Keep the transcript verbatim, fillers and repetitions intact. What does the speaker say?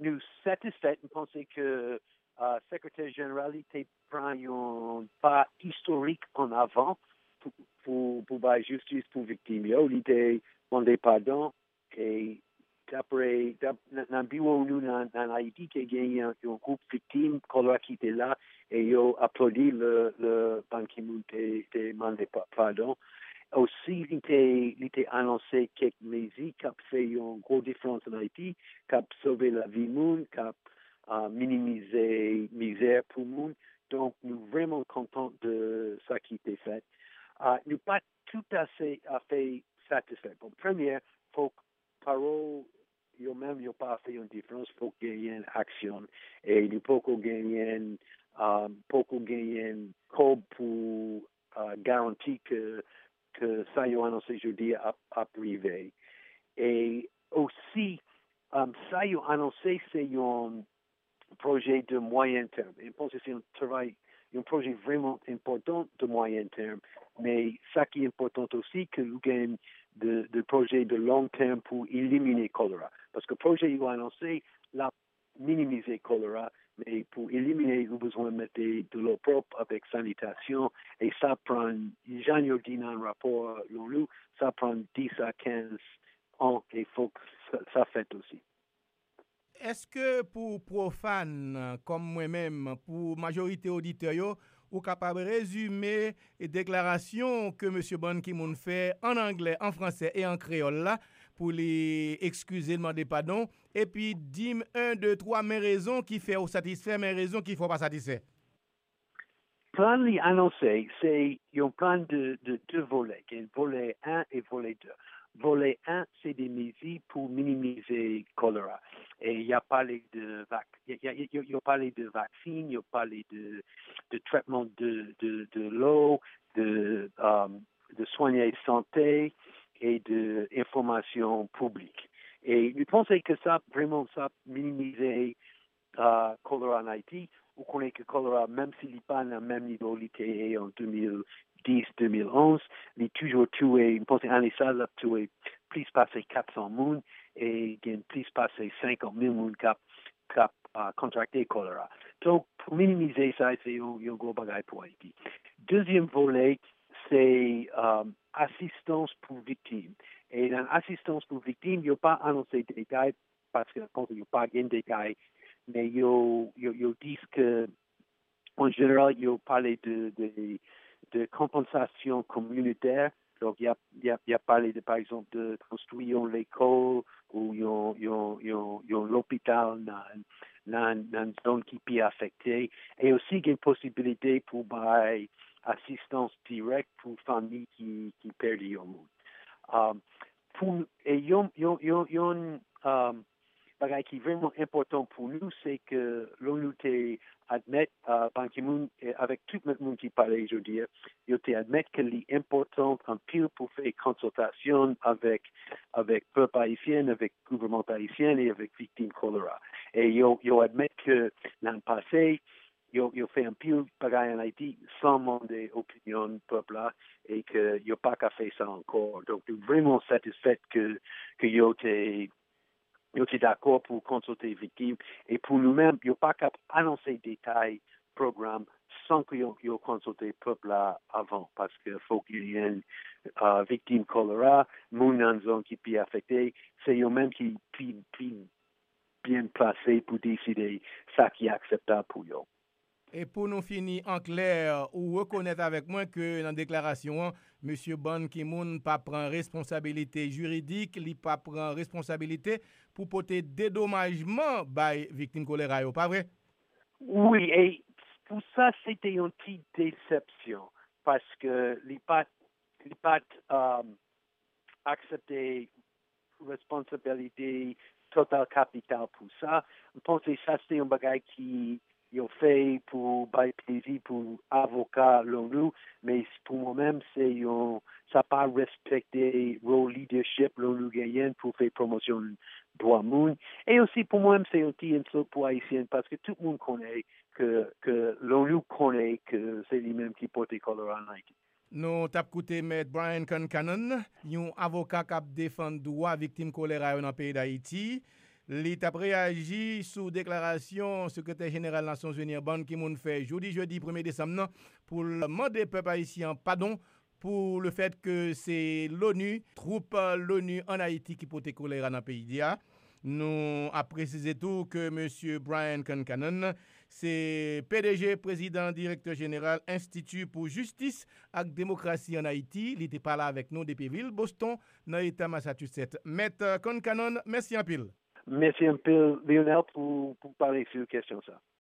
Nou satisfè, m panse ke uh, Sekretè Jeneral li te pran yon pa istorik an avan pou, pou, pou bay jistis pou viktim yo. Li te mande padon e dapre nan biwo nou nan Ayiti, te gen yon gwoup viktim kolera ki te la e yo aplodi lè Ban Ki-moon te mande padon. Osi, li te anonse kèk mezi k ap fè yon gwo diferans an Ayiti, k ap sove lavi moun, k ap minimize mizè pou moun. Donk, nou vrèman kontan de sa ki te fèt. Nou pa toutafè satisfè. Bon, premye, fòk pawòl yo menm yo pa fè yon diferans, fòk genyen aksyon. E nou poko genyen, poko genyen kòb pou garanti ke, ke sa yo anonse jodi a ap, ap rive. E osi, sa yo anonse se yon pwojè de mwayen tèm. E m panse se yon travay, yon pwojè vrèman enpòtan de mwayen tèm. Men sa ki enpòtan osi, ke nou gen de, de pwojè de long tèm pou elimine kolera. Paske pwojè yo anonse, l ap minimize kolera, men pou elimine, ou bezwen mete dlo pwòp avèk sanitasyon, e sa pran, jan yo di nan rapò l'ONU, sa pran dis a kenz an, e fòk sa, sa fèt osi. Èske pou pwofàn, kòm mwen menm, pou majorite oditè yo, ou kapab rezime deklarasyon ke mesye Ban Ki-moon fè an anglè, an fransè e an kreyòl la, pou li ekskize l, mande padon, epi di m en, de, twa, men rezon ki fè w satisfè, men rezon ki fè w pa satisfè? Plan li anonse se yon plan de, de de volè, gen volè en e volè de. Volè en se de mezi pou minimize kolera. E y a pale de vak, y a, y a, y a, y a pale de vaksin, y a pale de, de trètman de, de, de lo, de, um, de swen sante e de enfòmasyon piblik. E nou panse ke sa vrèman sa minimize uh, kolera an Ayiti, ou konnen ke kolera, menm si li pa nan menm nivo li te ye an de mil dis, de mil onz, li toujou touye, m panse ane sa, l ap touye plis pase kat san moun, e gen plis pase senkant mil moun k ap, k ap uh, kontrakte kolera. Donk, pou minimize sa, se yon, yon gwo bagay pou Ayiti. Dezyèm volè, se um, asistans pou viktim. E nan asistans pou viktim, yo pa anonse detay paske yo pa gen detay, men yo, yo, yo di ke, an jeneral, yo pale de, de, de konpansasyon kominotè. Donk, y a, y a, y a pale de, pa egzanp, de konstwi yon lekòl ou yon, yon, yon, yon lopital nan, nan, nan zòn ki pi afekte. E osi gen posibilite pou bay asistans dirèk pou fanmi ki, ki pèdi yon moun. Um, pou e yon yon yon yon um, bagay ki vrèman enpòtan pou nou, se ke l'ONU te admèt uh, Ban Ki-moon, eh, avèk tout lòt moun ki pale jodi a, yo te admèt ke li enpòtan anpil pou fè konsiltasyon avèk avèk pèp ayisyen, avèk gouvènman ayisyen e avèk viktim kolera. E yo yo admèt ke nan pase yo, yo fè anpil bagay an Ayiti san mande opinyon pèp la e ke yo pa ka fè sa ankò. Donk, nou vrèman satisfè ke, ke yo te, yo te dakò pou konsilte viktim. E pou nou menm, yo pa ka anonse detay pwogram san ke yo, yo konsilte pèp la avan, paske fòk genyen uh, viktim kolera, moun nan zòn ki pi afekte, se yo menm ki pi, pi byen plase pou deside sa ki akseptab pou yo. E pou nou fini an klè, ou rekonèt avèk mwen ke nan deklarasyon an, mesye Ban Ki-moon pa pran responsabilite jiridik, li pa pran responsabilite pou pote dedomajman bay viktim kolera yo, pa vre? Wi, e pou sa, se te yon ti desepsyon, paske li pa t, li pa t um, aksepte responsibility total capital pou sa. M panse sa se yon bagay ki yo fè pou bay plezi pou avoka l'ONU, men pou mwen menm se yon, sa pa respekte role leadership l'ONU genyen pou fè pwomosyon dwa moun. E osi pou mwen menm se yon ti ensult pou Ayisyen, paske tout moun konnen ke, ke l'ONU konnen ke se li menm ki pote kolera an Ayiti. Nou t ap koute Mèt Brian Concannon, yon avoka k ap defann dwa viktim kolera yo nan peyi Dayiti. Li t ap reyaji sou deklarasyon Sekretè Jeneral Nasyonzini an, Ban Ki-moon, fè jodi jedi premye desanm nan pou l mande pèp ayisyen an padon pou le fèt ke se l'ONU, twoup l'ONU ann Ayiti ki pote kolera nan peyi a. Nou ap presize tou ke mesye Brian Concannon se P D G, prezidan, direktè jeneral Enstiti pou Jistis ak Demokrasi ann Ayiti. Li te pale avèk nou depi vil Boston, nan eta Massachusetts. Mèt Concannon, mèsi anpil. Mèsi anpil, Lionel, pou, pou pale sou kesyon sa.